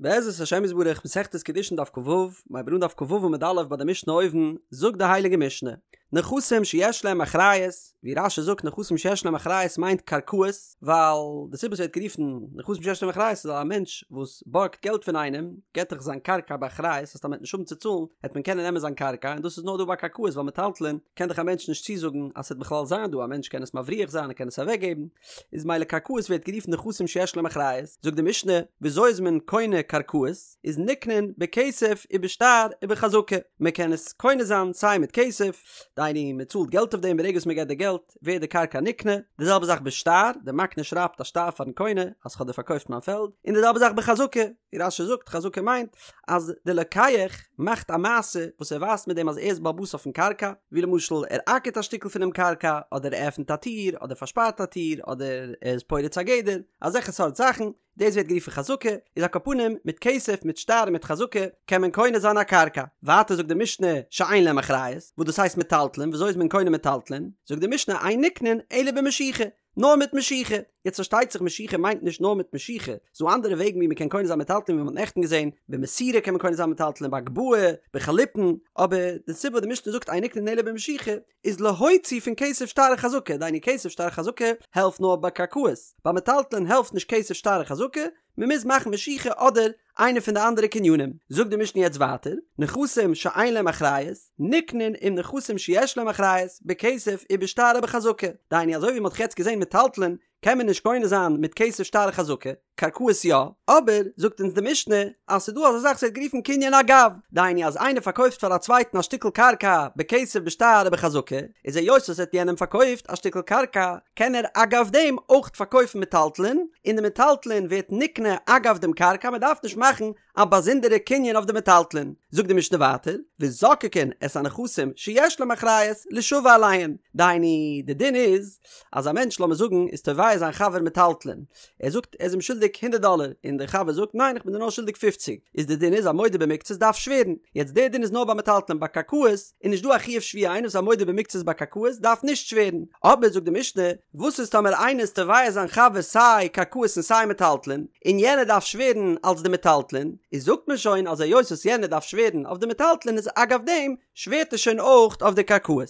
בעזרת השם יתברך מסכת קידושין דף כ"ו, מ'הייבט אן דף כ"ו עמוד א' ביי די משנה אויבן, זאגט די הייליגע משנה, נכסים שיש להם אחריות, ווי רש"י זאגט נכסים שיש להם אחריות מיינט קרקעות, ווייל די סיבה ס'ווערט גערופן נכסים שיש להם אחריות איז ווייל א מענטש וואס בארגט געלט פון איינעם געט דאך זיין קרקע באחריות אז טאמער מ'עט נישט האבן צו צאלן העט מען קענען נעמען זיין קרקע און דאס איז נאר דא ביי קרקעות ווייל מטלטלין קען דאך א מענטש נישט צוזאגן אז ס'וועט בכלל זיין דא א מענטש קען עס מבריח זיין ער קען עס אוועקגעבן איז מילא קרקעות ווערט גערופן נכסים שיש להם אחריות, זאגט די משנה, וויאזוי איז מען קונה קרקעות, איז נקנין בכסף ובשטר ובחזקה, מען קען עס קונה זיין סיי מיט כסף, דהיינו מען צאלט געלט אויף דעם ברגע וואס מען געט די געלט ווערט די קרקע נקנה, די זעלבע זאך בשטר, די מקנה שרייבט א שטר פארן קונה אז כ'האב דיר פארקויפט מיין פעלד, און די זעלבע זאך בחזקה, ווי רש"י זאגט חזקה מיינט אז די לוקח מאכט א מעשה וואס ער ווייזט מיט דעם אז ער איז בעל הבית אויפן קרקע, ווי למשל ער אקערט א שטיקל פונעם קרקע, אדער ער עפנט א טיר, אדער פארשפארט א טיר, אדער ער איז פורץ א גדר, אזעלכע סארט זאכן, דאס ווערט גערופן חזקה, איז על כל פנים מיט כסף מיט שטר און מיט חזקה קען מען קונה זיין א קרקע. ווייטער זאגט די משנה שאין להם אחריות, וואס דאס הייסט מטלטלין, וויאזוי איז מען קונה מטלטלין? זאגט די משנה אין נקנין אלא במשיכה, נאר מיט משיכה. יעצט פארשטייט זיך משיכה מיינט נישט נאר מיט משיכה, ס'דא אנדערע וועגן ווי מ'קען קונה זיין מטלטלין ווי מ'האט נעכטן געזען, במסירה קען מען קונה זיין מטלטלין, בהגבהה, בחליפין, אבער די סיבה וואס די משנה זאגט אין נקנין אלא במשיכה איז להוציא פון כסף שטר חזקה, דהיינו כסף שטר חזקה העלפט נאר ביי קרקעות, ביי מטלטלין העלפט נישט כסף שטר חזקה, מ'מוז מאכן משיכה אדער איינע פון די אנדערע קנינים. זאגט די משנה יעצט ווייטער, נכסים שאין להם אחריות, נקנין עם נכסים שיש להם אחריות, בכסף ובשטר ובחזקה. דהיינו אזוי ווי מ'האט יעצט געזען מטלטלין קען מען נישט קונה זיין מיט כסף שטר חזקה, קרקעות יא, אבער זאגט אונז די משנה אז ס'דא אזא זאך ס'ווערט גערופן קנין אגב, דהיינו אז איינער פארקויפט פאר א צווייטן א שטיקל קרקע בכסף בשטר ובחזקה, איז היות ער האט יענעם פארקויפט א שטיקל קרקע קען ער אגב דעם אויך פארקויפן מטלטלין, און די מטלטלין ווערט נקנה אגב דעם קרקע, מען דארף נישט מאכן א באזונדערע קנין אויף די מטלטלין. זאגט די משנה ווייטער, וזוקקין את הנכסים שיש להם אחריות לישבע עליהן, דהיינו די דין איז אז א מענטש לאמיר זאגן איז תובע זיין חבר מטלטלין, ער זאגט ער איז אים שולדיג הונדערט דאלער, און דער חבר זאגט ניין איך בין דיר נאר שולדיג פופציג, איז די דין איז א מודה במקצת דארף שווערן, יעצט דער דין איז נאר ביי מטלטלין ביי קרקעות איז נישט דא א חיוב שבועה איינער וואס איז א מודה במקצת ביי קרקעות דארף נישט שווערן, אבער זאגט די משנה וואס איז טאמער איינער איז תובע זיין חבר סיי קרקעות און סיי מטלטלין, און יענער דארף שווערן אלס די מטלטלין, איז זאגט מען שוין אז היות וואס יענער דארף שווערן אויף די מטלטלין איז אגב דעם שווערט ער שוין אויך אויף די קרקעות.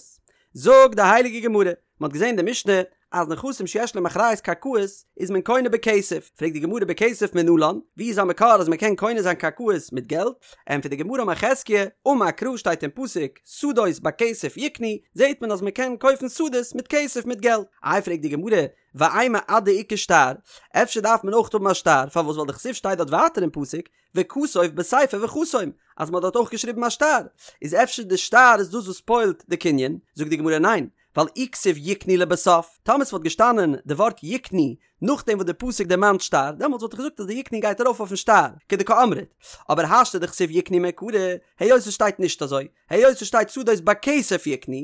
זאגט די הייליגע גמרא, מען האט געזען די משנה אז נכסים שיש להם אחריות קרקעות איז מען קונה בכסף, פרעגט די גמרא בכסף מנלן, ווי איז א מקור אז מען קען קונה זיין קרקעות מיט געלט? ענטפערט די גמרא אמר חזקיה, אמר קרא שטייט אין פסוק שדות בכסף יקנו, זעט מען אז מען קען קויפן שדות מיט כסף מיט געלט, איי פרעגט די גמרא ואימא עד דאיכא שטר, אפשר דארף מען אויך האבן א שטר, פארוואס ווייל דכתיב שטייט דארט ווייטער אין פסוק וכתוב בספר וחתום, אז מען האט דארט אויך געשריבן א שטר, איז אפשר די שטר איז דאס וואס פועל'ט די קנין, זאגט די גמרא ניין, ווייל אי כתיב יקנו לבסוף, טאמער ס'וואלט געשטאנען די ווארט יקנו נאכדעם וואס די פסוק דערמאנט שטר, דעמאלטס וואלט איך געזאגט אז די יקנו גייט ארויף אויפן שטר, כדקאמרת, אבער השתא דכתיב יקנו מעיקרא, היות ס'שטייט נישט אזוי, היות ס'שטייט שדות בכסף יקנו,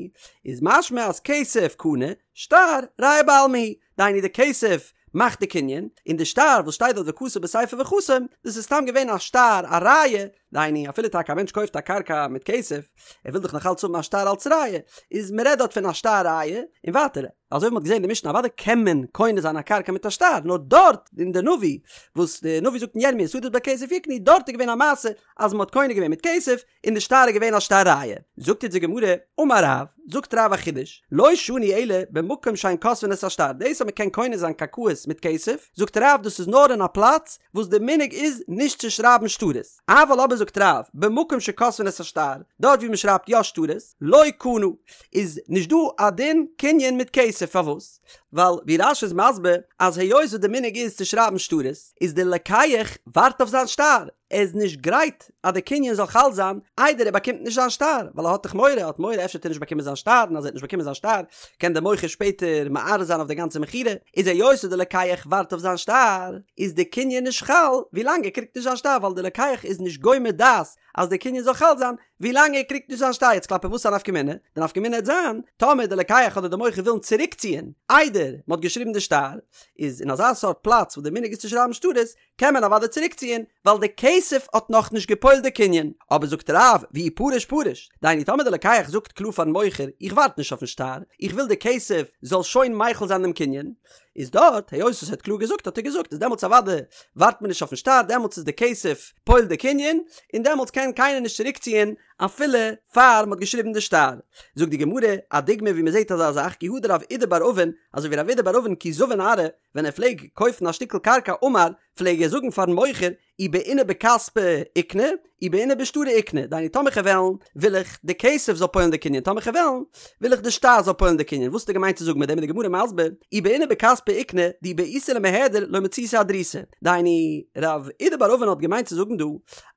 איז משמע אז כסף קנה, שטר ראיה בעלמא הוא, דהיינו די כסף מאכט די קנין, און די שטר וואס שטייט דארט וכתוב בספר וחתום, דאס איז סתם געווען א שטר א ראיה, דהיינו אפילו טאקע א מענטש קויפט א קרקע מיט כסף, ער וויל דאך נאך אלץ האבן א שטר אלץ ראיה, איז מען רעדט דארט פון א שטר ראיה, און ווייטער, אזוי ווי מען האט געזען אין די משנה אוודאי קען מען קונה זיין א קרקע מיט א שטר, נאר דארט אין די נביא וואס די נביא זאגט אין ירמיה שדות בכסף יקנו, דארט איז געווען א מעשה אז מען האט קונה געווען מיט כסף, און די שטר איז געווען א שטר ראיה. זאגט אונז די גמרא, אמר רב, זאגט רב א חידוש, לא שנו אלא במקום שאין כותבין את השטר, דאס אז מען קען קונה זיין קרקעות מיט כסף, זאגט רב דאס איז נאר אין א פלאץ וואס די מנהג איז נישט צו שרייבן שטרות, אבל אבער זאגט רב, במקום שכותבין את השטר, דארט ווי מען שרייבט יא שטרות, לא קנה, איז נישט דא א דין קנין מיט כסף, פארוואס? ווייל ווי רש"י איז מסביר אז היות וואס די מנהג איז צו שרייבן שטרות, איז די לוקח ווארט אויף זיין שטר, ער איז נישט גרייט אז די קנין זאל חל זיין איידער ער באקומט נישט זיין שטר, ווייל ער האט דאך מורא, ער האט מורא אפשר וועט ער נישט באקומען זיין שטר, און אז ער וועט נישט באקומען זיין שטר קען דער מוכר שפעטער מערער זיין אויף די גאנצע מכירה, איז היות וואס די לוקח ווארט אויף זיין שטר, איז די קנין נישט חל ווילאנג ער קריגט נישט זיין שטר, ווייל די לוקח איז נישט גומר דעת אז די קנין זאל חל זיין ווילאנג ער קריגט נישט זיין שטר, יעצט כלפי וואס א נפקא מינה? די נפקא מינה העט זיין טאמער די לוקח אדער די מוכר ווילן צוריקציען איידער מען האט געשריבן די שטר, איז אין אזא סארט פלאץ וואס די מנהג איז צו שרייבן שטרות, קען מען אוודאי צוריקציען, ווייל די כסף האט נאכנישט געפועלט די קנין. אבער זאגט רב, ואי פריש פריש, דהיינו טאמער די לוקח זאגט קלאר פארן מוכר, איך ווארט נישט אויפן שטר, איך וויל די כסף זאל שוין מחיל זיין דעם קנין, איז דארט היות וואס ער האט קלאר געזאגט האט ער געזאגט איז דעמאלטס אוודאי ווארט מען נישט אויפן שטר דעמאלטס איז די כסף פועל די קנין און דעמאלטס קען קיינער נישט צוריקציען אפילו פאר מ'האט געשריבן די שטר. זאגט די גמרא א דוגמא ווי מ'זעט אזא זאך כי הא דרב אידי בר אבין אזוי ווי רב אידי בר אבין כי זבין ארעא ווען ער פלעג קויפן א שטיקל קרקע אמר פלעג ער זאגן פארן מוכר אי בעינא בכספא איקני, אי בעינא בשטרא איקני, דהיינו טאמער כ'וועל וועלן, וויל איך די כסף זאל פועל'ן די קנין, טאמער כ'וועל וועלן, וויל איך די שטר זאל פועל'ן די קנין, וואס האט ער געמיינט צו זאגן מיט דעם איז די גמרא מסביר, אי בעינא בכספא איקני, דאי בעיתו למיהדר לא מציתי אהדרותא, דהיינו, רב אידי בר אבין האט געמיינט צו זאגן דא,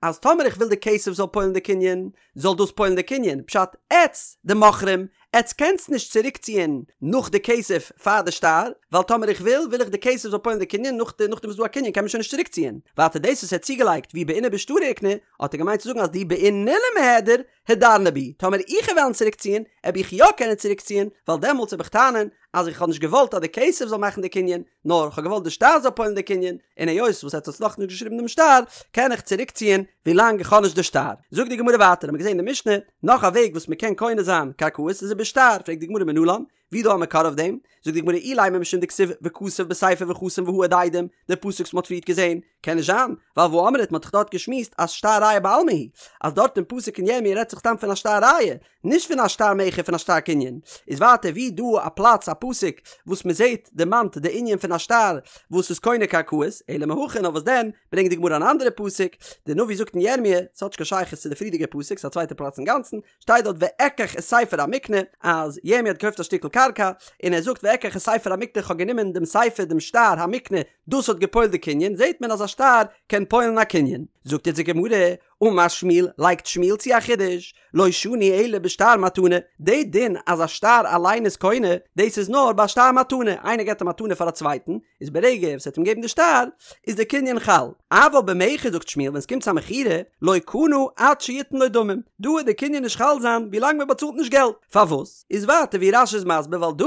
אז טאמער איך וויל די כסף זאל פועל'ן די קנין, זאל דאס פועל'ן די קנין, פשט, עטץ, די מוכרים, עטץ קענטס נישט צוריקציען נאך די כסף פאר די שטר, ווייל טאמער איך וויל, וויל איך די כסף זאל פועל'ן די קנין, נאך די נאכדעם וואס ס'דא א קנין קען מען שוין נישט צוריקציען. ווייטער דאס וואס ער האט צוגעלייגט ואי בעינא בשטרא איקני, האט ער געמיינט צו זאגן אז דאי בעינא למיהדר, הדרנא בי, טאמער איך וועל וועלן צוריקציען, עב איך יא קענען צוריקציען, ווייל דעמאלטס עב איך טענה'ן אז איך האב נישט געוואלט אז די כסף זאל מאכן די קנין, נאר כ'האב געוואלט די שטר זאל פועל'ן די קנין, און היות וואס עטץ האטס נאכנישט געשריבן דעם שטר, קען איך צוריקציען ווילאנג איך האב נישט די שטר. זאגט די גמרא ווייטער, האבן מיר געזען אין די משנה, נאך א וועג וואס מ'קען קונה זיין קרקעות איז ובשטר, פרעגט די גמרא מנלן, ווי דא א מקור אויף דעם? זאגט די גמרא אילימא משום דכתיב וכתב בספר וחתום והעד עדים, די פסוק וואס מ'האט פריערט געזען, קען נישט זיין, ווייל והאמרת מ'האט דאך דארט געשמועסט אז שטר ראיה בעלמא הוא, אז דארט אין פסוק אין ירמי' רעדט זיך סתם פון א שטר ראיה, נישט פון א שטר מכר פון א שטר קנין. איז ווייטער ווי דא א פלאץ א פסוק וואס מ'זעט דערמאנט די ענין פון א שטר וואס איז קונה קרקעות, אלא מהכא נאר וואס דען, ברענגט די גמרא אן אנדערע פסוק, די נביא זאגט אין ירמי', ס'האט נישט קיין שייכות צו די פריערדיגע פסוק, ס'איז א צווייטע פלאץ אינגאנצן, שטייט דארט ואקח את ספר המקנה, אז ירמי' האט געקויפט א שטיקל קרקע, און ער זאגט ואקח את ספר המקנה כ'האב גענומען דעם ספר דעם שטר המקנה, דאס האט געפועלט די קנין, זעט מען אז א שטר קען פועל'ן א קנין. זאגט יעצט די גמרא, אמר שמואל, לייגט שמואל צו א חידוש, לא שנו אלא בשטר מתנה, די דין אז א שטר אליין איז קונה, דאס איז נאר ביי א שטר מתנה, איינער געבט א מתנה פאר א צווייטן, איז ברגע וואס ער האט אים געגעבן די שטר, איז די קנין חל. אבל במכר זאגט שמואל ווען עס קומט צו א מכירה, לא קנה עד שיתן לו דמים, דא וועט די קנין נישט חל זיין ווילאנג מען באצאלט נישט געלט. פארוואס? איז ווייטער ווי רש"י איז מסביר ווייל דא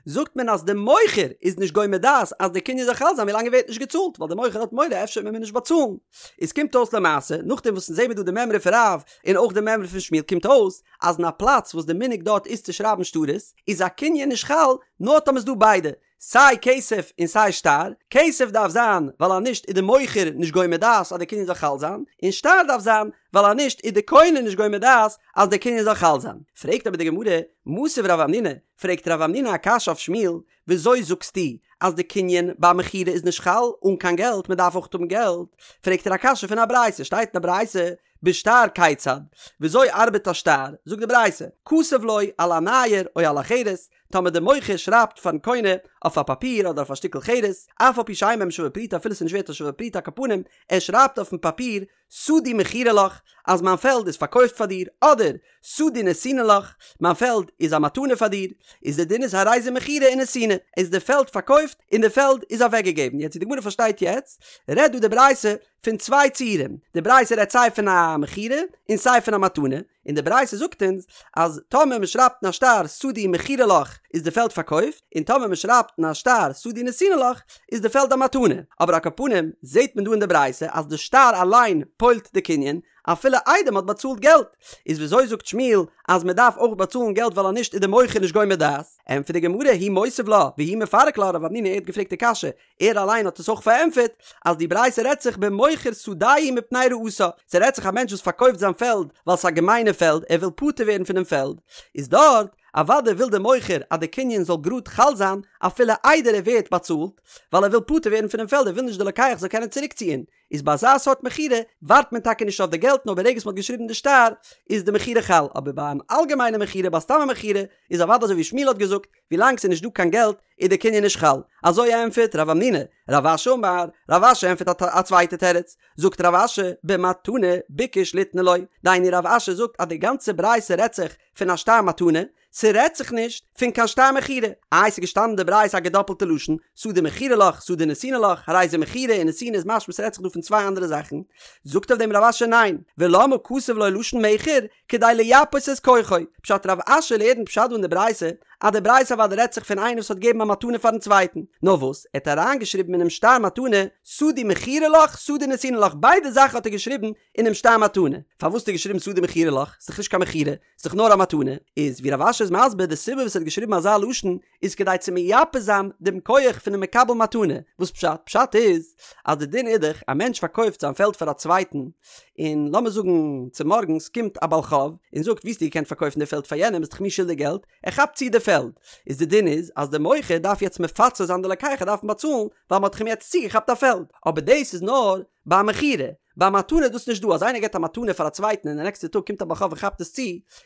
זאגט מען אז די מוכר איז נישט גומר דעת אז די קנין זאל חל זיין ווילאנג ער ווערט נישט געצאלט ווייל די מוכר האט מורא אפשר וועט מען מיר נישט באצאלן. איז קומט אויס למעשה נאכדעם וואס אונז זעמיר דא די מימרא פון רב און אויך די מימרא פון שמואל קומט אויס אז אין א פלאץ וואס די מנהג דארט איז צו שרייבן שטרות איז א קנין נישט חל נאר טאמער איז דא ביידע סיי כסף און סיי שטר, כסף דארף זיין ווייל אז נישט איז די מוכר נישט גומר דעת אז די קנין זאל חל זיין, און שטר דארף זיין ווייל אז נישט איז די קונה נישט גומר דעת אז די קנין זאל חל זיין. פרעגט אבער די גמרא, מתיב רב המנונא, פרעגט רב המנונא א קשיא אויף שמואל, וויאזוי זאגסטו אז די קנין ביי מכירה איז נישט חל אן קיין געלט, מען דארף אויך האבן געלט, פרעגט ער א קשיא פון א ברייתא, שטייט אין א ברייתא, בשטר כיצד, וויאזוי ארבעט א שטר, זאגט די ברייתא, כתב לו על הנייר או על החרס, טאמער דער מוכר שרייבט פארן קונה אויף א פאפיר אדער אויף א שטיקל חרס, אף על פי שאין בהם שווה פרוטה אפילו ס'איז נישט ווערט א שווה פרוטה על כל פנים, ער שרייבט אויפן פאפיר שדי מכורה לך אז מיין פעלד איז פארקויפט פאר דיר, אדער שדי נתונה לך מיין פעלד איז א מתנה פאר דיר, איז די דין איז הרי זו מכורה ונתונה, איז די פעלד פארקויפט און די פעלד איז אוועקגעגעבן, יעצט ווי די גמרא פארשטייט יעצט, רעדט דא די ברייתא פון צוויי ציורים, די ברייתא רעדט סיי פון א מכירה און סיי פון א מתנה, און די ברייתא זאגט אונז אז טאמער מען שרייבט אין א שטר שדי מכורה לך איז די פעלד פארקויפט, און טאמער מען שרייבט אין א שטר שדי נתונה לך איז די פעלד א מתנה, אבער על כל פנים זעט מען דא אין די ברייתא אז די שטר אליין פועל'ט די קנין אפילו איידער מען האט באצאלט געלט, איז וויאזוי זאגט שמואל אז מען דארף אויך באצאלן געלט ווייל אז נישט איז די מוכר נישט גומר דעת? ענטפערט די גמרא הוא מותיב לה והוא מפרק לה רב המנונא ער האט געפרעגט די קשיא ער אליין האט עס אויך פארענטפערט אז די ברייתא רעדט זיך במוכר שדהו מפני רעתה, ס'רעדט זיך א מענטש וואס פארקויפט זיין פעלד ווייל ס'איז א געמיינע פעלד, ער וויל פטור ווערן פונעם פעלד, איז דארט אוודאי וויל דער מוכר אז די קנין זאל גראד חל זיין אפילו איידער ער ווערט באצאלט, ווייל ער וויל פטור ווערן פונעם פעלד ער וויל נישט די לוקח זאל קענען צוריקציען, איז ביי אזא סארט מכירה ווארט מען טאקע נישט אויף די געלט נאר ברגע וואס מ'האט געשריבן די שטר איז די מכירה חל, אבער ביי אן אלגעמיינע מכירה ביי סתם א מכירה איז אוודאי אזוי ווי שמואל האט געזאגט, ווילאנג ס'איז נישט דא קיין געלט איז די קנין נישט חל. אזוי ענטפערט רב המנונא. רב אשי אמר, רב אשי ענטפערט א צווייטע תירוץ. זאגט רב אשי, במתנה ביקש ליתנה לו. דהיינו רב אשי זאגט אז די גאנצע ברייתא רעדט זיך פון א שטר מתנה, ס'רעדט זיך נישט פון קיין שטר מכירה. איי ס'איז געשטאנען אין די ברייתא א געדאפלטע לשון, שדי מכורה לך, שדי נתונה לך, הרי זו מכורה און נתונה איז משמע ס'רעדט זיך דא פון צוויי אנדערע זאכן. זאגט אויף דעם רב אשי ניין, ולמה כתב לו לשון מכר, כדי לייפות את כוחו. פשט רב אשי לערנט פשט דא אין די ברייתא, אז די ברייתא אוודאי רעדט זיך פון איינער וואס האט געגעבן א. מתנה פארן צווייטן, נאר וואס, ער האט אריינגעשריבן אינעם שטר מתנה, שדי מכורה לך, שדי נתונה לך, ביידע זאכן האט ער געשריבן אינעם שטר מתנה. פארוואס האט ער געשריבן שדי מכורה לך? ס'איז דאך נישט קיין מכירה, ס'איז דאך נאר א מתנה. איז ווי רב אשי איז מסביר, די סיבה וואס ער האט געשריבן אזא לשון, איז כדי צו מייפה זיין דעם כח פונעם מקבל מתנה. וואס פשט? פשט איז, אז די דין איז דאך, א מענטש פארקויפט זיין פעלד פאר א צווייטן, און לאמיר זאגן צומארגנס קומט א בעל חוב און זאגט ווי האסטו געקענט פארקויפן די פעלד פאר יענעם ביסט דאך מיר שולדיג געלט, ער כאפט צו די פעלד, איז די דין איז אז די מוכר דארף יעצט מפצה זיין די לוקח ער דארף אים באצאלן ווייל מען האט דאך אים יעצט צוגעכאפט א פעלד, אבער דאס איז נאר ביי א מכירה, ביי א מתנה איז דאס נישט דא, אז איינער געבט א מתנה פאר א צווייטן און די נעקסטע טאג קומט א בעל חוב און כאפט עס צו,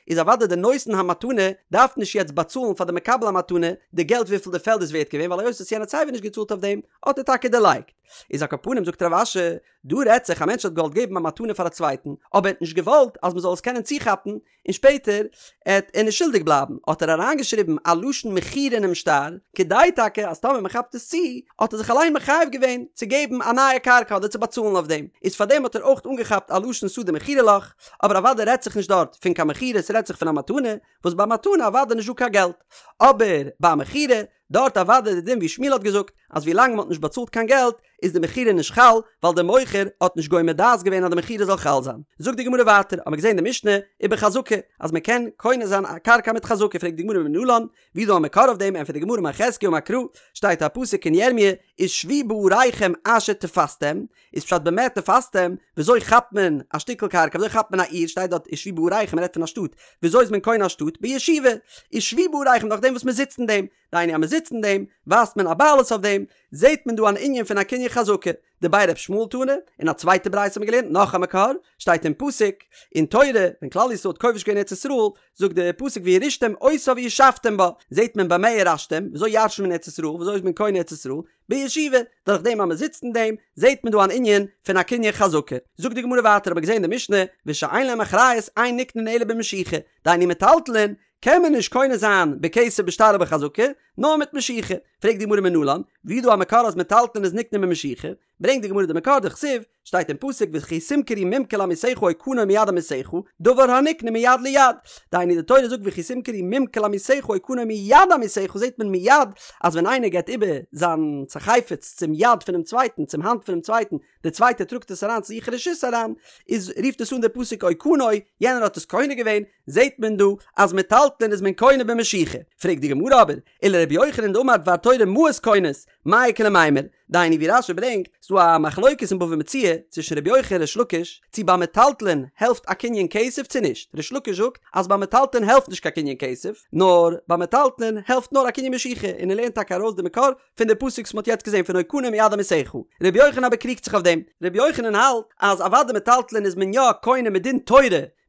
איז אוודאי די נותן המתנה דארף נישט יעצט באצאלן פאר די מקבל המתנה די געלט וויפיל די פעלד איז ווערט געווען ווייל היות וואס יענער האט סייווי נישט געצאלט אויף דעם האט ער טאקע דערלייגט. איז על כל פנים זאגט רב אשי, דא רעדט זיך א מענטש האט געוואלט געבן א מתנה פאר א צווייטן, אבער ער האט נישט געוואלט אז מען זאל עס קענען צוכאפן, און שפעטער עט ער נישט שולדיג בלייבן, האט ער אריינגעשריבן א לשון מכירה אינעם שטר, כדי טאקע אז טאמער מען כאפט עס צו, האט ער זיך אליין מחייב געווען צו געבן א נייע קרקע אדער צו באצאלן אויף דעם, איז פארדעם האט ער אויך אנגעכאפט א לשון שדה מכורה לך, אבער אוודאי רעדט זיך נישט דארט פון קיין מכירה, ס'רעדט זיך פון א מתנה, וואס ביי מתנה אוודאי נישט דא קיין געלט, אבער ביי א מכירה, דארט אוודאי די דין ווי שמואל האט געזאגט, אז ווי לאנג מען האט נישט באצאלט קיין געלט, איז די מכירה נישט חל, ווייל דער מוכר האט נישט גומר דעת געווען אז די מכירה זאל חל זיין. זאגט די גמרא ווייטער, האמיר געזען די משנה ובחזקה, אז מען קען קונה זיין א קרקע מיט חזקה, פרעגט די גמרא מנלן, ווי איז דא א מקור אויף דעם, ענטפערט די גמרא אמר חזקיה אמר קרא, שטייט א פסוק אין ירמיה, ושבו בעריכם אשר תפשתם, איז פשט במה תפשתם, וויאזוי כאפט מען א שטיקל קרקע, וויאזוי כאפט מען א עיר, שטייט דארט ושבו בעריכם, מען רעדט פון א שטאט, וויאזוי איז מען קונה א שטאט, בישיבה, ושבו בעריכם נאכדעם וואס מען זיצט אין דעם, דהיינו אז מען זיצט אין דעם, ווייזט מען א בעלות אויף דעם, זעט מען דא אן ענין פון א קנין חזקה, דבי ר' ישמעאל תנא, אין א צווייטע ברייתא האט מען געלערנט נאך א מקור, שטייט אין פסוק, אין תורה, ווען כלל ישראל האט כובש געווען ארץ ישראל, זאגט די פסוק וירשתם אותה וישבתם בה, זעט מען במה ירשתם, וויאזוי ירש'נט מען ארץ ישראל, וויאזוי איז מען קונה ארץ ישראל, בישיבה, דורך דעם אז מען זיצט אין דעם, זעט מען דא אן ענין פון א קנין חזקה. זאגט די גמרא ווייטער האט מען געזען אין די משנה, ושאין להם אחריות אין נקנין אלא במשיכה, דהיינו מטלטלין, קען מען נישט קונה זיין בכסף בשטר ובחזקה, נאר מיט משיכה. פרעגט די גמרא מנלן, ווי איז דא א מקור אז מטלטלין איז נקנה במשיכה? ברענגט די גמרא די מקור דכתיב, שטייט אין פסוק וכי תמכרו ממכר לעמיתך או קנה מיד עמיתך, דבר הנקנה מיד ליד. דהיינו די תורה זאגט וכי תמכרו ממכר לעמיתך או קנה מיד עמיתך זעט מען מיד אז ווען איינער געבט איבער זיין חפץ צום יד פונעם צווייטן צום האנט פונעם צווייטן דער צווייטער טראגט עס אריין צו זיך אין רשות אריין איז רופט עס אן דער פסוק או קנה יענער האט עס קונה געווען זעט מען דא אז מטלטלין איז מען קונה במשיכה. פרעגט די גמרא אבער, ולרבי יוחנן דאמר דבר תורה מעות קונות, מאי איכא למימר? דהיינו ווי רש"י ברענגט, ס'דא א מחלוקת אין בבא מציעא צווישן רבי יוחנן און ריש לקיש, צו ביי מטלטלין העלפט א קנין כסף צו נישט, ריש לקיש זאגט אז ביי מטלטלין העלפט נישט קיין קנין כסף, נאר ביי מטלטלין העלפט נאר א קנין משיכה, און ער לערנט טאקע ארויס די מקור פון די פסוק וואס מ'האט יעצט געזען פון או קנה מיד עמיתך. רבי יוחנן אבער קריגט זיך אויף דעם, רבי יוחנן האלט אז אוודאי מטלטלין איז מען יא קונה מדין תורה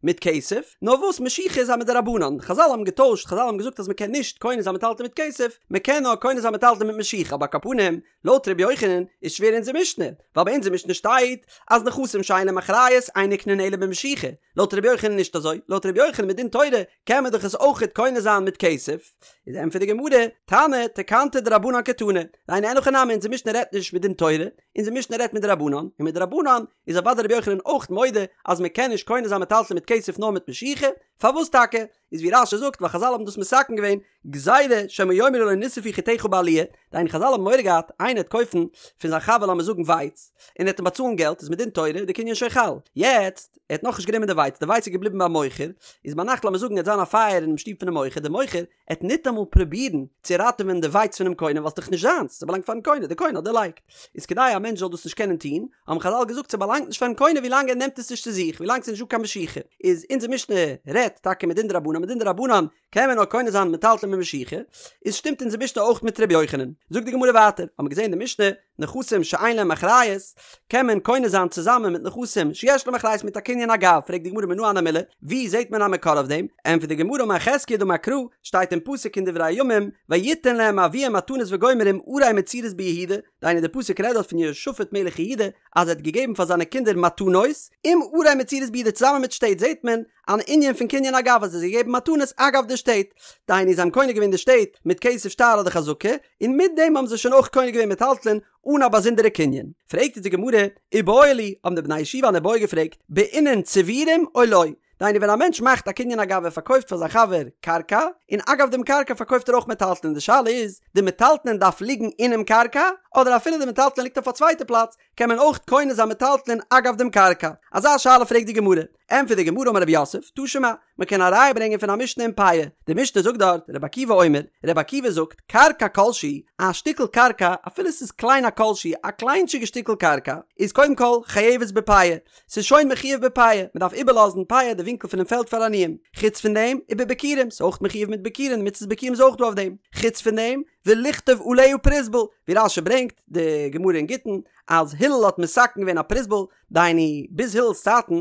מיט כסף, נאר וואס משיכה איז א מדרבנן, חזל האבן געטוישט, חזל האבן געזאגט אז מען קען נישט קונה זיין מטלטלין מיט כסף, מען קען נאר קונה זיין מטלטלין מיט משיכה, אבער על כל פנים, לויט ר' יוחנן איז שווער אונזער משנה, ווייל ביי אונזער משנה שטייט אז נכסים שאין להם אחריות אין נקנין אלא במשיכה, לויט ר' יוחנן נישט אזוי, לויט ר' יוחנן מדין תורה קען מען דאך עס אויכעט קונה זיין מיט כסף, איז ענטפערט די גמרא, תנא תקנתא דרבנן קתני, דהיינו אין הכי נמי אונזער משנה רעדט נישט מדין תורה, אונזער משנה רעדט מדרבנן, און מדרבנן איז אוודאי רבי יוחנן אויך מודה אז מען קען נישט קונה זיין מטלטלין מיט כסף נאר מיט משיכה, פארוואס טאקע? איז ווי רש"י זאגט ווייל חזל האבן דאס מתקן געווען גזירה שמא יאמרו לו נשרפו חיטיך בעליה, דהיינו חזל האבן מורא געהאט איינער וועט קויפן פון זיין חבר לאמיר זאגן ווייץ און ער וועט אים באצאלן געלט איז מדין תורה די קנין שוין חל, יעצט ער האט נאכנישט גענומען די ווייץ די ווייץ איז געבליבן ביים מוכר, איז ביינאכט לאמיר זאגן עט זיין א פייער אינעם שטוב פונעם מוכר, די מוכר עט ניטאמאל פרובירן צו ראטעווען די ווייץ פונעם קונה ווייל ס'דאך נישט זיינס, ס'באלאנגט פארן קונה, די קונה האט דערלייגט. איז כדי א מענטש זאל דאס נישט קענען טון, האבן חזל געזאגט ס'באלאנגט נישט פארן קונה ווילאנג ער נעמט עס נישט צו זיך, ווילאנג ס'איז נישט דא קיין משיכה. איז אונזער משנה רעדט טאקע מדין דרבנן, מדין דרבנן קען מען נאר קונה זיין מטלטלין מיט משיכה, איז שטימט אונזער משנה אויך מיט ר' יוחנן. זאגט די גמרא ווייטער, האבן מיר געזען אין די משנה, נכסים שאין להם אחריות, קען מען קונה זיין צוזאמען מיט נכסים שיש להם אחריות מיט א קנין אגב, פרעגט די גמרא מנא הני מילי, ווי זעט מען א מקור אויף דעם? ענטפערט די גמרא אמר חזקיה דאמר קרא, שטייט אין פסוק אין דברי הימים, ויתן להם אביהם מתנות וגומר עם ערי מצורות ביהודה, דהיינו די פסוק רעדט דארט פון יהושפט מלך יהודה אז ער האט געגעבן פאר זיינע קינדער מתנות עם ערי מצורות ביהודה צוזאמען מיט שטעט זעט מען אן ענין פון קנין אגב אז ער האט געגעבן מתנות אגב די שטעט, דהיינו זיי האבן קונה געווען די שטעט מיט כסף שטר אדער חזקה, און מיט דעם האבן זיי שוין אויך קונה געווען מטלטלין אן א באזונדערע קנין. פרעגט אונז די גמרא, איבעיא להו, האבן די בני הישיבה אן איבעיא געפרעגט, בעינן צבורים או לא? דהיינו ווען א מענטש מאכט א קנין אגב ער פארקויפט פאר זיין חבר קרקע, און אגב דעם קרקע פארקויפט ער אויך מטלטלין, די שאלה איז, די מטלטלין דארף ליגן אינעם קרקע, אדער אפילו די מטלטלין ליגט אויף א צווייטע פלאץ, קען מען אויך קונה זיין מטלטלין אגב דעם קרקע? אזא שאלה פרעגט די גמרא. ענטפערט די גמרא אמר רב יוסף, תא שמע, מען קען א ראיה ברענגען פון א משנה אין פאה, די משנה זאגט דארט, רבי עקיבא אומר, רבי עקיבא זאגט, קרקע כלשהי, א שטיקל קרקע, אפילו ס'איז קליין א כלשהי, א קליינטשיגע שטיקל קרקע, איז קודם כל חייבת בפאה, ס'איז שוין מחויב בפאה, מען דארף איבערלאזן פאה די ווינקל פונעם פעלד פאר עניים, חוץ פון דעם, ובביכורים, ס'איז אויך מחויב מיט ביכורים, די מצות ביכורים איז אויך דא אויף דעם, חוץ פון דעם, ולכתוב עליה פרוזבול, ווי רש"י ברענגט, די גמרא אין גיטין, אז הלל האט מתקן געווען א פרוזבול, דהיינו, ביז הילל'ס צייטן,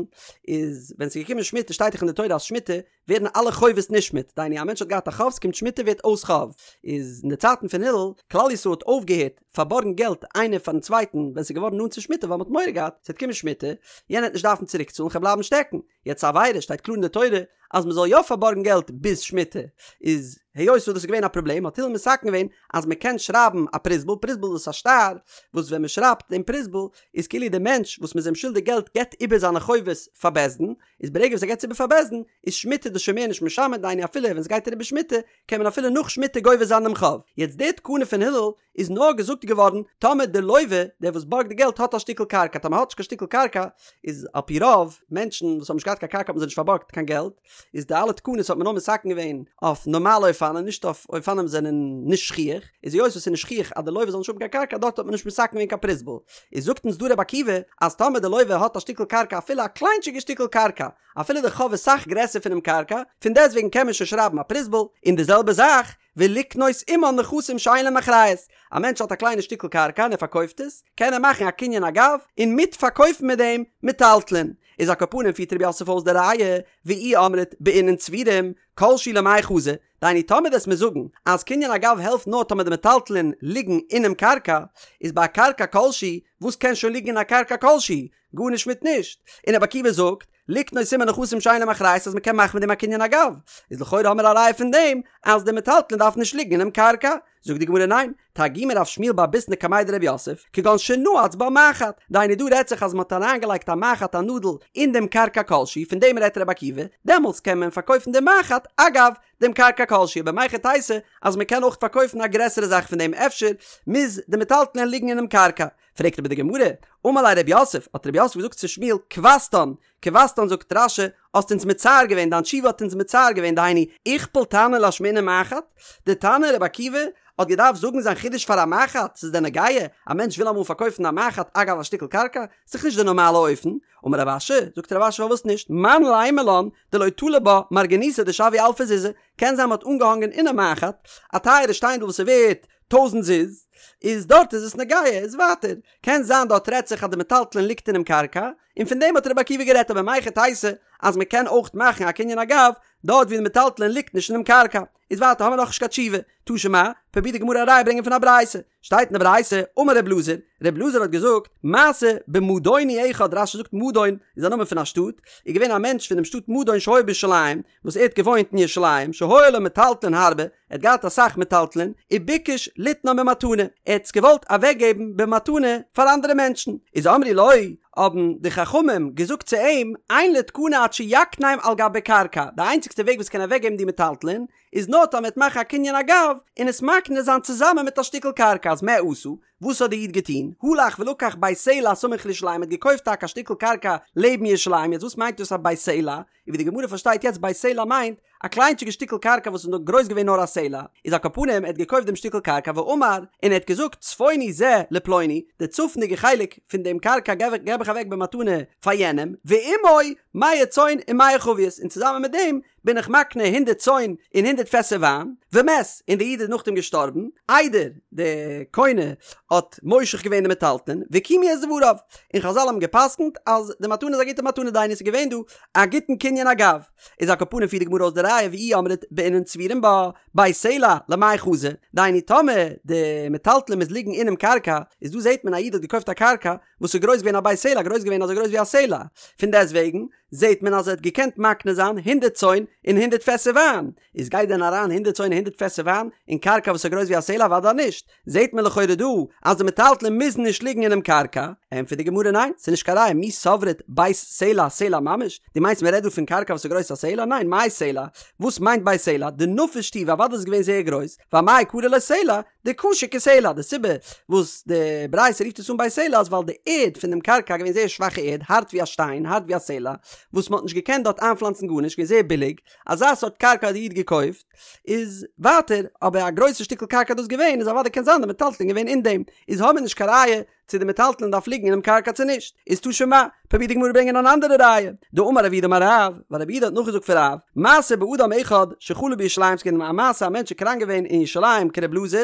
איז ווען ס'איז געקומען שמיטה, שטייט דאך אין די תורה אז שמיטה ווערן אלע חובות נשמט, דהיינו א מענטש האט געהאט א חוב, ס'קומט שמיטה ווערט אויס חוב, איז אין די צייטן פון הלל, כלל ישראל האט אויפגעהערט פארבארגן געלט איינער פארן צווייטן ווען ס'איז געווארן נאנט צו שמיטה ווייל מ'האט מורא געהאט ס'וועט קומען שמיטה, יענער וועט נישט דארפן צוריקצאלן כ'וועל בלייבן שטעקן. יעצט עבירה שטייט קלאר אין די תורה אז מ'זאל יא פארבארגן געלט ביז שמיטה, איז היות וואס דאס איז געווען א פראבלעם האט הלל מתקן געווען אז מ'קען שרייבן א פרוזבול, פרוזבול איז א שטר וואס ווען מ'שרייבט דעם פרוזבול איז כאילו דער מענטש וואס מ'איז אים שולדיג געלט געבט איבער זיינע חובות פאר בית דין, איז ברגע וואס ער געבט עס איבער פאר בית דין איז שמיטה דאס שוין מער נישט משמט דהיינו אפילו ווען ס'גייט אריבער שמיטה קען מען אפילו נאך שמיטה גובה זיין דעם חוב, יעצט די תקנה פון הלל איז נאר געזאגט געווארן טאמער די לווה, דער וואס בארגט די געלט האט א שטיקל קרקע, טאמער האט נישט קיין שטיקל קרקע איז על פי רוב מענטשן וואס האבן נישט געהאט קיין קרקע האט מען זיי נישט פארבארגט קיין געלט, איז די אלע תקנות האט מען נאר מתקן געווען אויף נארמאלע אופנים נישט אויף אופנים וואס זענען נישט שכיח, איז היות וואס ס'איז נישט שכיח אז די לווה זאל נישט האבן קיין קרקע דארט האט מען נישט מתקן געווען קיין פרוזבול, איז זאגט אונז דא רבי עקיבא אז טאמער די לווה האט א שטיקל קרקע אפילו א קליינטשיגע שטיקל קרקע אפילו די חוב איז סאך גרעסער פונעם קרקע, פון דעסטוועגן קען מען שוין שרייבן א פרוזבול, און די זעלבע זאך ולקנות עמן נכסים שאין להם אחריות, א מענטש האט א קליינע שטיקל קרקע און ער פארקויפט עס, קען ער מאכן א קנין אגב, און מיט פארקויפן מיט דעם מטלטלין. איז על כל פנים פירט רב יוסף אויס די ראיה, ואי אמרת בעינן צבורים, כל שהוא למאי חזי, דהיינו טאמער וועסט מיר זאגן אז קנין אגב העלפט נאר טאמער די מטלטלין ליגן אינעם קרקע, איז ביי א קרקע כלשהי, וואס קען שוין ליגן אין א קרקע כלשהי? גארנישט מיט נישט. און רבי עקיבא זאגט, לקנות עמה נכסים שאין להם אחריות אז מ'קען מאכן מיט דעם א קנין אגב, איז לכאורה האמיר א ראיה פון דעם אז די מטלטלין דארף נישט ליגן אינעם קרקע. זאגט די גמרא ניין, תרגמא רב שמואל בר ביסנא קמיה דרב יוסף, כגון שנעץ בה מחט, דהיינו דא רעדט זיך אז מ'האט אריינגעלייגט א מחט א נאדל אין דעם קרקע כלשהי, פון דעם רעדט רבי עקיבא, דעמאלטס קען מען פארקויפן דעם מחט, אגב, דעם קרקע כלשהי, אבער מהיכי תיתי אז מ'קען אויך פארקויפן א גרעסערע זאך פון דעם אפשר מוז די מטלטלין ליגן אינעם קרקע. פרעגט אבער די גמרא, אמר ליה רב יוסף, האט רב יוסף געזאגט צו שמואל, כוותן, כוותן זאגט רש"י, האסט אונז מצער געווען, דיין תשובה האט אונז מצער געווען, דהיינו, איכפל תנא לאשמועינן מחט, די תנא רבי עקיבא האט געדארפט זאגן זיין חידוש פאר א מחט, ס'איז דען נוגע, א מענטש וויל אמאל פארקויפן א מחט אגב א שטיקל קרקע, ס'איז דאך נישט די נארמאלע אופן, אמר רב אשי, זאגט רב אשי פארוואס נישט, מאן לימא לן דלא תלי בה מרגניתא דשויא אלפא זוזי, קען זיין מ'האט אנגעהאנגען אינעם מחט א טייערע שטיינדל וואס איז ווערט טויזענט זוז, איז דארט איז עס נוגע, איז ווייטער, קען זיין דארט רעדט זיך אז די מטלטלין ליגט אינעם קרקע, און פון דעם האט רבי עקיבא גערעדט אבער מהיכי תיתי אז מען קען אויך מאכן א קנין אגב דארט ווי די מטלטלין ליגט נישט אינעם קרקע, איז ווייטער האמיר נאכנישט קיין תשובה, תא שמע, פרובירט די גמרא א ראיה ברענגען פון א ברייתא, שטייט אין די ברייתא, אמר רב אלעזר, רב אלעזר האט געזאגט, מעשה במדוני אחד, רש"י זאגט מדון איז א נאמען פון א שטאט, איז געווען א מענטש פון דעם שטאט מדון שהיה בירושלים, וואס ער האט געוואוינט אין ירושלים, שהיו לו מטלטלין הרבה, ער האט געהאט אסאך מטלטלין, וביקש ליתנם במתנה, ער האט עס געוואלט אוועקגעבן במתנה פאר אנדערע מענטשן, איז אמרו לו, האבן די חכמים געזאגט צו אים, אין לו תקנה עד שיקנם על גבי קרקע, די איינציגסטע וועג וואס קען אוועקגעבן די מטלטלין, איז נאר טאמער ער וועט מאכן א קנין אגב, און עס מקנה זיין צוזאמען מיט א שטיקל קרקע, אז מה עשה, וואס האט די איד געטון? הלך ולקח בית סלע הסמוך לירושלים, ער האט געקויפט טאקע א שטיקל קרקע לעבן ירושלים, יעצט וואס מיינט דאס א בית סלע? און ווי די גמרא פארשטייט יעצט בית סלע מיינט א קליינטשיגע שטיקל קרקע וואס איז נאר גרויס געווען נאר א סלע, איז על כל פנים ער האט געקויפט דעם שטיקל קרקע ואמר, און ער האט געזאגט צפוני זה לפלוני, די צפונדיגע חלק פון דעם קרקע געב איך אוועק במתנה פאר יענעם, ועמו מאה צאן ומאה חביות, און צוזאמען מיט דעם בין איך מקנה הונדערט צאן און הונדערט פעסער וויין, ומת, און די איד איז נאכדעם געשטארבן, איידער די קונה האט מושך געווען די מטלטלין, וקיימו את דבריו, און חזל האבן גע'פסק'נט אז די מתנה איז א גוטע מתנה דהיינו עס איז געווען דא א גוטן קנין אגב, איז על כל פנים פירט די גמרא אויס די ראיה ואי אמרת בעינן צבורים בה, בית סלע למאי חזי, דהיינו טאמער די מטלטלין מוז ליגן אינעם קרקע, איז דא זעט מען א איד האט געקויפט א קרקע וואס איז גרויס געווען א בית סלע גרויס געווען אזוי גרויס ווי א סלע, פון דעסטוועגן. זעהט מען אז ער האט געקענט מקנה זיין הונדרעט צאן און הונדרעט פעסער וויין, איז גייט דען אריין הונדרעט צאן און הונדרעט פעסער וויין אין קרקע וואס איז גרויס ווי א סלע? אוודאי נישט, זעהט מען לכאורה דא אז די מטלטלין מוזן נישט ליגן אינעם קרקע, ענטפערט די גמרא ניין, ס'איז נישט קיין ראיה, מי סברת בית סלע סלע ממש? דו מיינסט מען רעדט דא פון קרקע וואס איז גרויס א סלע? ניין, מאי סלע? וואס מיינט בית סלע? דנפיש טובא, אוודאי איז עס געווען זייער גרויס, ואמאי קרי ליה סלע? דקשה כסלע, די סיבה וואס די ברייתא רופט עס אן בית סלע איז ווייל די ערד פון דעם קרקע איז געווען זייער שוואכע ערד, הארט ווי א שטיין, הארט ווי א סלע, וואס מען האט נישט געקענט דארט איינפלאנצן גארנישט, געווען זייער ביליג, אזא סארט קרקע האט די איד געקויפט, איז ווייטער, אבער א גרויסע שטיקל קרקע איז דאס געווען, איז אוודאי קען זיין די מטלטלין געווען אין דעם, איז האמיר נישט קיין ראיה צו די מטלטלין דארף ליגן אינעם קרקע צו נישט, איז תא שמע, פרובירט די גמרא ברענגען אן אנדערע ראיה, דאמר רב יהודה אמר רב, ווייל רב יהודה האט נאכגעזאגט פון רב, מעשה באדם אחד שחלה בירושלים ס'איז געווען א מעשה א מענטש איז קראנק געווען אין ירושלים כר' אלעזר,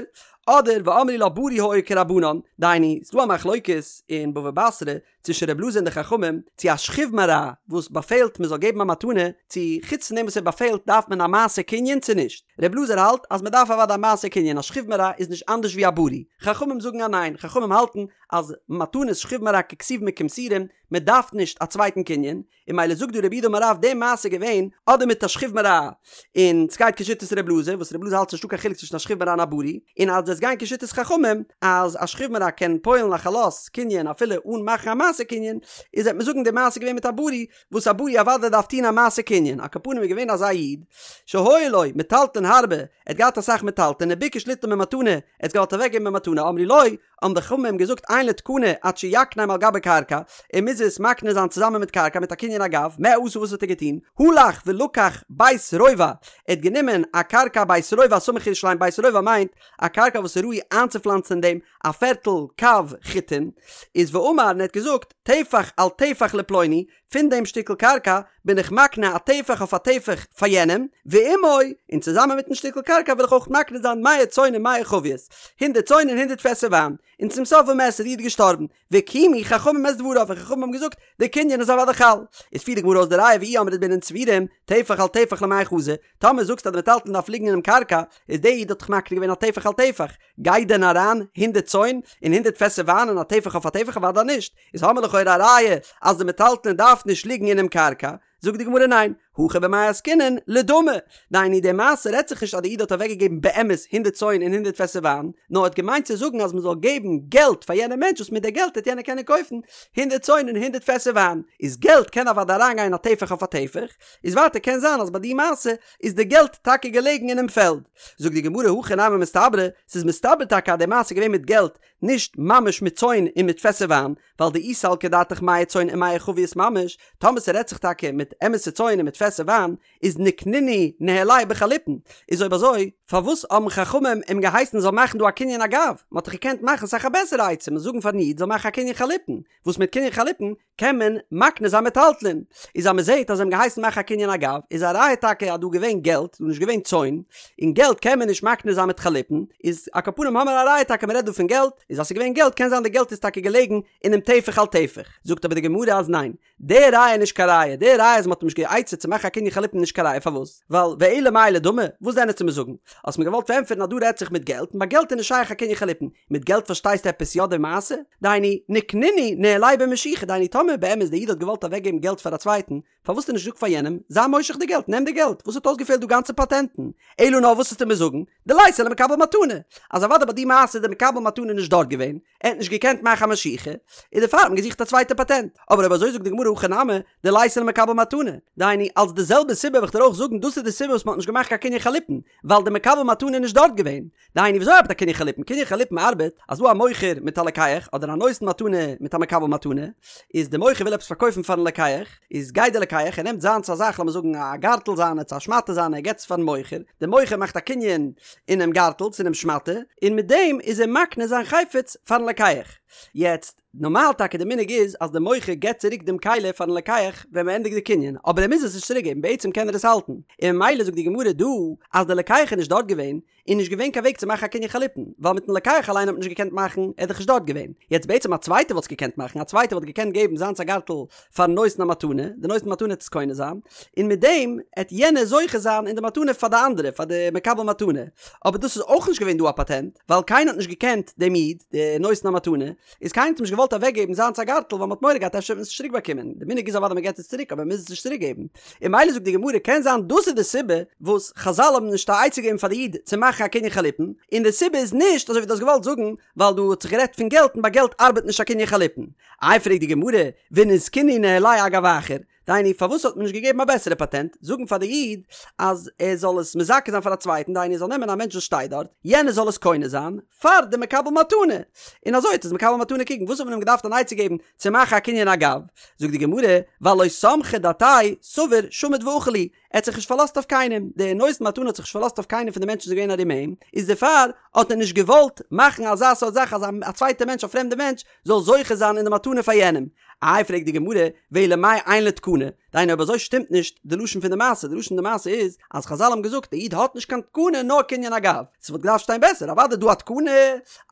אדער ואמרי לה בריא היה כרבנן, דהיינו, ס'דא א מחלוקת אין בבא בתרא צווישן ר' אלעזר און די חכמים, צו א שכיב מרע וואס באפעלט מען זאל געבן א מתנה, צו חוץ פון דעם וואס ער באפעלט דארף מען א מעשה קנין צו נישט. ר' אלעזר האלט אז מען דארף אוודאי א מעשה קנין, א שכיב מרע איז נישט אנדערש ווי א בריא. חכמים זאגן אז ניין, חכמים האלטן אז מתנות שכיב מרע ככתובים וכמסורים, מען דארף נישט א צווייטן קנין, און ממילא זאגט דא רב יהודה אמר רב די מעשה געווען אדער מיט א שכיב מרע און סגייט כשיטת ר' אלעזר וואס ר' אלעזר האלט ס'נישטא קיין חילוק צווישן א שכיב מרע און א בריא און אז עס גיין כשיטת חכמים אז א שכיב מרע קען פועל'ן א חלות קנין אפילו אן מאכן א מעשה קנין איז וועט מען זאגן די מעשה געווען מיט א בריא וואס א בריא אוודאי דארף טוהן א מעשה קנין על כל פנים איז געווען אזא איד שהיו לו מטלטלין הרבה ער האט געהאט אסאך מטלטלין וביקש ליתנם במתנה ער האט געוואלט אוועקגעבן במתנה אמרו לו האבן די חכמים געזאגט אין לו תקנה עד שיקנם על גבי קרקע, ער מוז עס מקנה זיין צוזאמען מיט קרקע מיט א קנין אגב, מה עשה וואס האט ער געטון? הלך ולקח בית רובע, ער האט גענומען א קרקע בית רובע סמוך לירושלים, בית רובע מיינט א קרקע וואס איז ראוי איינצופלאנצן אין דעם א פערטל קב חיטין, איז ואמר און ער האט געזאגט טפח על טפח לפלוני, פון דעם שטיקל קרקע בין איך מקנה א טפח אויף א טפח פאר יענעם, ועמו, און צוזאמען מיטן שטיקל קרקע וויל איך אויך מקנה זיין מאה צאן ומאה חביות, הונדערט צאן און הונדערט פעסער וויין. און צום סוף ומת איז דער איד געשטארבן, וקיימו חכמים את דבריו, און חכמים האבן געזאגט, דער קנין איז אוודאי חל. איז פירט די גמרא אויס די ראיה ואי אמרת בעינן צבורים, טפח על טפח למאי חזי, טאמער זאגסטו אז די מטלטלין דארף ליגן אינעם קרקע, איז דער איד האט דאך מקנה געווען א טפח על טפח, גייט דען אריין הונדערט צאן און הונדערט פעסער וויין אין א טפח אויף א טפח? אוודאי נישט. איז האמיר לכאורה א ראיה אז די מטלטלין דארף נישט ליגן אינעם קרקע, זאגט די גמרא ניין, הכא במאי עסקינן לדמי, דהיינו די מעשה רעדט זיך נישט אז די איד האט אוועקגעגעבן באמת הונדערט צאן און הונדערט פעסער וויין, נאר ער האט געמיינט צו זאגן אז מען זאל געבן געלט פאר יענעם מענטש וואס מיט די געלט וועט יענער קענען קויפן הונדערט צאן און הונדערט פעסער וויין, איז געלט קען אוודאי אריינגיין א טפח אויף א טפח, איז ווייטער קען זיין אז ביי די מעשה איז די געלט טאקע געלעגן אינעם פעלד. זאגט די גמרא הכי נמי מסתברא, ס'איז מסתבר טאקע אז די מעשה איז געווען מיט געלט, נישט ממש מיט צאן און מיט פעסער וויין, ווייל דאי סלקא דעתך מאה צאן ומאה חביות ממש, טאמער ס'רעדט זיך טאקע מיט אמת'ע צאן און מיט פעסער וויין, איז ניקנינהו ניהליה בחליפין, איז אויב אזוי, פארוואס האבן חכמים אים געהייסן זאל מאכן דא א קנין אגב, מ'האט דאך געקענט מאכן אסאך א בעסערע עצה, מ'זאל זאגן פארן איד זאל מאכן א קנין חליפין, וואס מיט קנין חליפין קען מען מקנה זיין מטלטלין, איז אז מען זעט אז זיי האבן געהייסן מאכן א קנין אגב, איז א ראיה טאקע אז דא געווען געלט, דא נישט געווען צאן, און געלט קען מען נישט מקנה זיין מיט חליפין, איז על כל פנים האמער א ראיה טאקע מען רעדט דא פון געלט, איז אז ס'איז געווען געלט קען זיין די געלט איז טאקע געלעגן אינעם טפח על טפח, זאגט אבער די גמרא אז ניין, די ראיה איז נישט קיין ראיה, די ראיה אז מען האט אים נישט גע'עצה'ט צו מאכן א קנין חליפין איז נישט קיין ראיה, פארוואס? ווייל ואלא מאי לדמי, וואס דען וועסטו מיר זאגן? האסט מיר געוואלט פארענטפערן אז דא רעדט זיך מיט געלט, און ביי געלט איז נישט שייך א קנין חליפין, מיט געלט פארשטייסטו עפעס יא די מעשה? דהיינו, ניקנינהו ניהליה במשיכה, דהיינו טאמער באמת די איד האט געוואלט אוועקגעבן געלט פאר א צווייטן, פארוואס האט ער נישט געזאגט פאר יענעם, זיי מושך די געלט, נעם די געלט, וואס האט אויסגעפעלט דא גאנצע פאטענטן? אלא נאר וואס וועסטו מיר זאגן? דליתיה למקבל מתנה, אז אוודאי ביי די מעשה איז דער מקבל מתנה נישט דארט געווען, ער האט נישט געקענט מאכן א משיכה, און דערפאר האט מען געזוכט א צווייטע פאטענט. אבער אויב אזוי זאגט די גמרא הכא נמי, דליתיה למקבל מתנה, דהיינו, אלס די זעלבע סיבה וועל איך דיר אויך זאגן דאס איז די סיבה וואס מען האט נישט געמאכט קיין קנין חליפין, ווייל דער מקבל מתנה איז נישט דארט געווען. דהיינו וויאזוי ארבעט א קנין חליפין? קנין חליפין ארבעט אז דא א מוכר מיט א לוקח, אדער א נותן מתנה מיט א מקבל מתנה, איז די מוכר וויל עפעס פארקויפן פארן לוקח, איז גייט די לוקח ער נעמט זיינס א זאך לאמיר זאגן א גארטל זיינע צו א שמאטע זיינע ער געבט עס פארן מוכר, די מוכר מאכט א קנין אינעם גארטל צו אינעם שמאטע, און מיט דעם איז ער מקנה זיין חפץ פארן לוקח. יעצט, נארמאל טאקע די מנהג איז אז די מוכר געבט צוריק דעם כלי פארן לוקח ווען מען ענדיגט די קנין, אבער ער מוז עס נישט צוריק געבן, בעצם קען ער עס האלטן, און ממילא זאגט די גמרא דא אז די לוקח איז נישט דארט געווען, איז נישט געווען קיין וועג צו מאכן א קנין חליפין, ווייל מיטן לוקח אליין האט מען נישט געקענט מאכן, ער איז דאך נישט דארט געווען. יעצט בעצם א צווייטער וואלט עס געקענט מאכן, א צווייטער וואלט געקענט געבן זיינס א גארטל פארן נותן המתנה, די נותן מתנה עט עס קונה זיין, און מיט דעם עט יענער זוכה זיין אין די מתנה פאר די אנדערע, פאר די מקבל מתנה. אבער דאס איז אויך נישט געווען דא א פאטענט, ווייל קיינער האט נישט געקענט דעם איד, די נותן המתנה. איז קיינער האט אים נישט געוואלט אוועק געבן זיינס א גארטל ווייל מען האט מורא געהאט אפשר וועט מען עס נישט צוריק באקומען, די מנהג איז אוודאי מען געבט עס צוריק אבער מען מוז עס נישט צוריק געבן, און ממילא זאגט די גמרא קען זיין דאס איז די סיבה וואס חזל האבן נישט א עצה געגעבן פאר די איד צו מאכן א קנין חליפין, און די סיבה איז נישט אזוי ווי דו האסט געוואלט זאגן ווייל דא האט זיך גערעדט פון געלט און ביי געלט ארבעט נישט א קנין חליפין. איי פרעגט די גמרא ונזקינהו ניהליה אגב אחר, דהיינו פארוואס האט מען נישט געגעבן א בעסערע פאטענט, זאגן פאר די איד אז ער זאל עס מזכה זיין פאר א צווייטן, דהיינו ער זאל נעמען א מענטש וואס שטייט דארט, יענער זאל עס קונה זיין פאר די מקבל מתנה, און אזוי וועט עס מקבל מתנה קריגן, וואס האט מען אים געדארפט אן עצה געבן צו מאכן א קנין אגב? זאגט די גמרא, ווייל לא סמכא דעתיה סבר שמיט ואכיל להו, ער האט זיך נישט פארלאזט אויף קיינעם, דער נותן מתנה האט זיך נישט פארלאזט אויף קיינעם פון די מענטשן וואס איז געווען ארום אים, איז דערפאר האט ער נישט געוואלט מאכן אזא סארט זאך אז א צווייטער מענטש א פרעמדער מענטש זאל זוכה זיין אין די מתנה פאר יענעם. איי פרעגט די גמרא, ואלא מאי אין לו תקנה, דהיינו אויב אזוי שטימט נישט די לשון פון די מעשה, די לשון פון די מעשה איז אז חזל האבן געזאגט די איד האט נישט קיין תקנה נאר קנין אגב, ס'וואלט געדארפט שטיין בעסער אוודאי דא א תקנה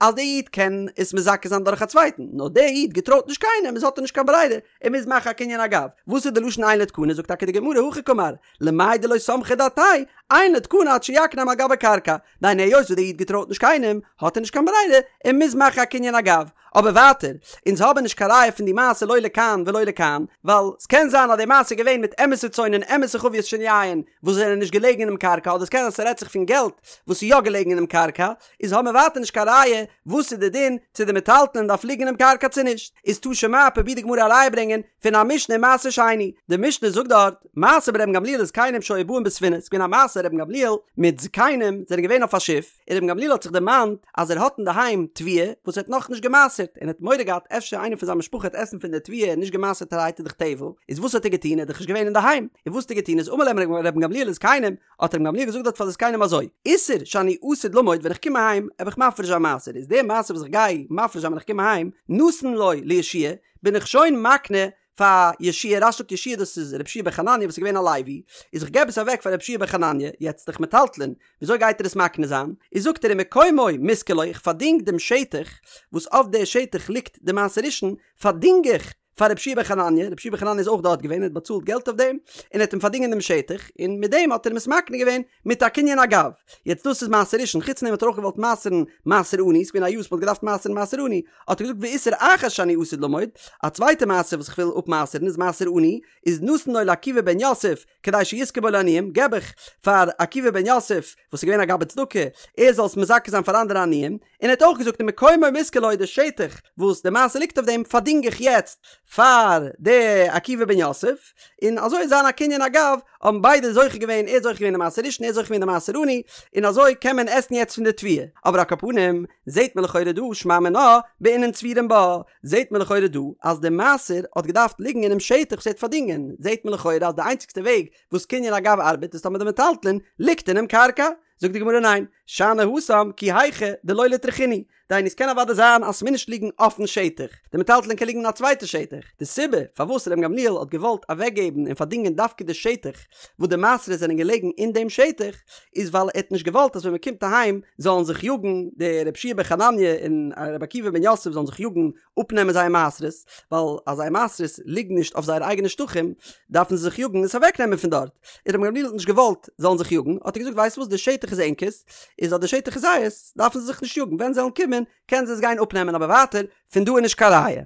אז די איד קען עס מזכה זיין דורך א צווייטן, נאר די איד געטרויט נישט קיינעם איז האט ער נישט קיין ברירה, ער מוז מאכן א קנין אגב. וואס איז די לשון אין לו תקנה? זאגט טאקע די גמרא הכי קאמר, למאי דלא סמכא דעתיה, אין לו תקנה עד שיקנה על גבי קרקע, דהיינו היות וואס די איד געטרויט נישט קיינעם, האט ער נישט קיין ברירה, ער מוז מאכן א קנין אגב. אבער ווייטער, אונז האבן נישט קיין ראיה פון די מעשה לא לכאן ולא לכאן, ווייל ס'קען זיין אז די מעשה איז געווען מיט אמת'ע צאן און אמת'ע חביות של יין וואס זענען נישט געלעגן אינעם קרקע, אדער ס'קען זיין ס'רעדט זיך פון געלט וואס איז יא געלעגן אינעם קרקע, איז האבן מיר ווייטער נישט קיין ראיה וואס איז די דין צו די מטלטלין דארף ליגן אינעם קרקע צו נישט, איז תא שמע פרובירט די גמרא א ראיה ברענגען פון א משנה אין מעשר שני, די משנה זאגט דארט, מעשה ברבן גמליאל וזקנים שהיו באין בספינה, ס'איז געווען א מעשה רבן גמליאל מיט זקנים זענען געווען אויף א שיף, און רבן גמליאל האט זיך דערמאנט אז ער האט אינדערהיים תבואה וואס ער האט נאכנישט גע'מעשר'ט, און ער האט מורא געהאט אפשר איינער פון זיין משפחה וועט עסן פון די תבואה נישט גע'מעשר'טערהייט איז דאך טבל, איז וואס האט ער געטון ער איז דאך נישט געווען אינדערהיים, און וואס האט ער געטון איז אמר להם רבן גמליאל לזקנים, האט רבן גמליאל געזאגט דארט פאר די זקנים אזוי, עישור שאני עתיד למוד ווען איך קום אהיים וועל איך מפריש זיין מעשר איז די מעשר וואס איך גיי מפריש זיין ווען איך קום אהיים נתון לו ליהושע בין איך שוין מקנה פאר יהושע רש"י זאגט יהושע דאס איז רבי יהושע בן חנניה וואס איז געווען א לוי איז איך געב עס אוועק פאר רבי יהושע בן חנניה יעצט דאך מטלטלין וויאזוי גייט ער עס מקנה זיין איז זאגט ער ומקומו מושכר לו איך פארדינג דעם שטח וואס אויף די שטח ליגט די מעשר ראשון פארדינג איך פאר רבי יהושע בן חנניה, רבי יהושע בן חנניה איז אויך דארט געווען, ער האט באצאלט געלט אויף דעם, און ער האט אים פארדינגען דעם שטח, און מיט דעם האט ער אים עס מקנה געווען מיט א קנין אגב. יעצט דאס איז מעשר ראשון, חוץ פון דעם האט ער אויך געוואלט מעשר'ן מעשר עני, ס'איז געווען א יאר וואס מ'האט געדארפט מעשר'ן מעשר עני, האט ער געזאגט ועישור אחר שאני עתיד למוד, א צווייטע מעשר וואס איך וויל אפמעשר'ן איז מעשר עני, איז נתון לו לעקיבא בן יוסף, כדי שיזכה בו לעניים, געב איך פאר עקיבא בן יוסף, וואס איז געווען א גבאי צדקה, ער זאל עס מזכה זיין פאר אנדערע עניים, און ער האט אויך געזאגט ומקומו מושכר לו די שטח וואס די מעשר ליגט אויף דעם פארדינג איך יעצט פאר די עקיבא בן יוסף, און אזוי איז זיין א קנין אגב, האבן ביידע זוכה געווען, ער האט זוכה געווען די מעשר ראשון, ער האט זוכה געווען די מעשר עני, און אזוי קען מען עסן יעצט פון די תבואה. אבער על כל פנים, זעט מען לכאורה דא, שמע מינה, בעינן צבורים בה, זעט מען לכאורה דא אז די מעשר האט געדארפט ליגן אינעם שטח וואס ער האט פארדינגען, זעט מען לכאורה אז די איינציגסטע וועג וואס קנין אגב ארבעט איז טאמער די מטלטלין ליגט אינעם קרקע. זאגט די גמרא ניין, שאני התם כי היכי דלא לטרחינהו, דהיינו עס קען אוודאי זיין אז ס'מוז נישט ליגן אויפן שטח, די מטלטלין קען ליגן אין א צווייטע שטח, די סיבה פארוואס רבן גמליאל האט געוואלט אוועקגעבן און פארדינגען דווקא די שטח וואס די מעשרות זענען געלעגן אין דעם שטח, איז ווייל ער האט נישט געוואלט אז ווען מען קומט אהיים זאלן זיך יאגן די רבי יהושע בן חנניה און רבי עקיבא בן יוסף זאלן זיך יאגן אפנעמען זייער מעשרות, ווייל אז זייער מעשרות ליגן נישט אויף זייערע אייגענע שטחים דארפן זיי זיך יאגן עס אוועקנעמען פון דארט, און רבן גמליאל האט נישט געוואלט זאלן זיך יאגן האט ער געזאגט ווייסט וואס די שטח איז ענקערס, איז אז די שטח איז זייערס דארפן זיי זיך נישט יאגן ווען זיי וועלן קומען קענען זיי עס גיין אפנעמען אבער ווייטער פון דא איז נישט קיין ראיה.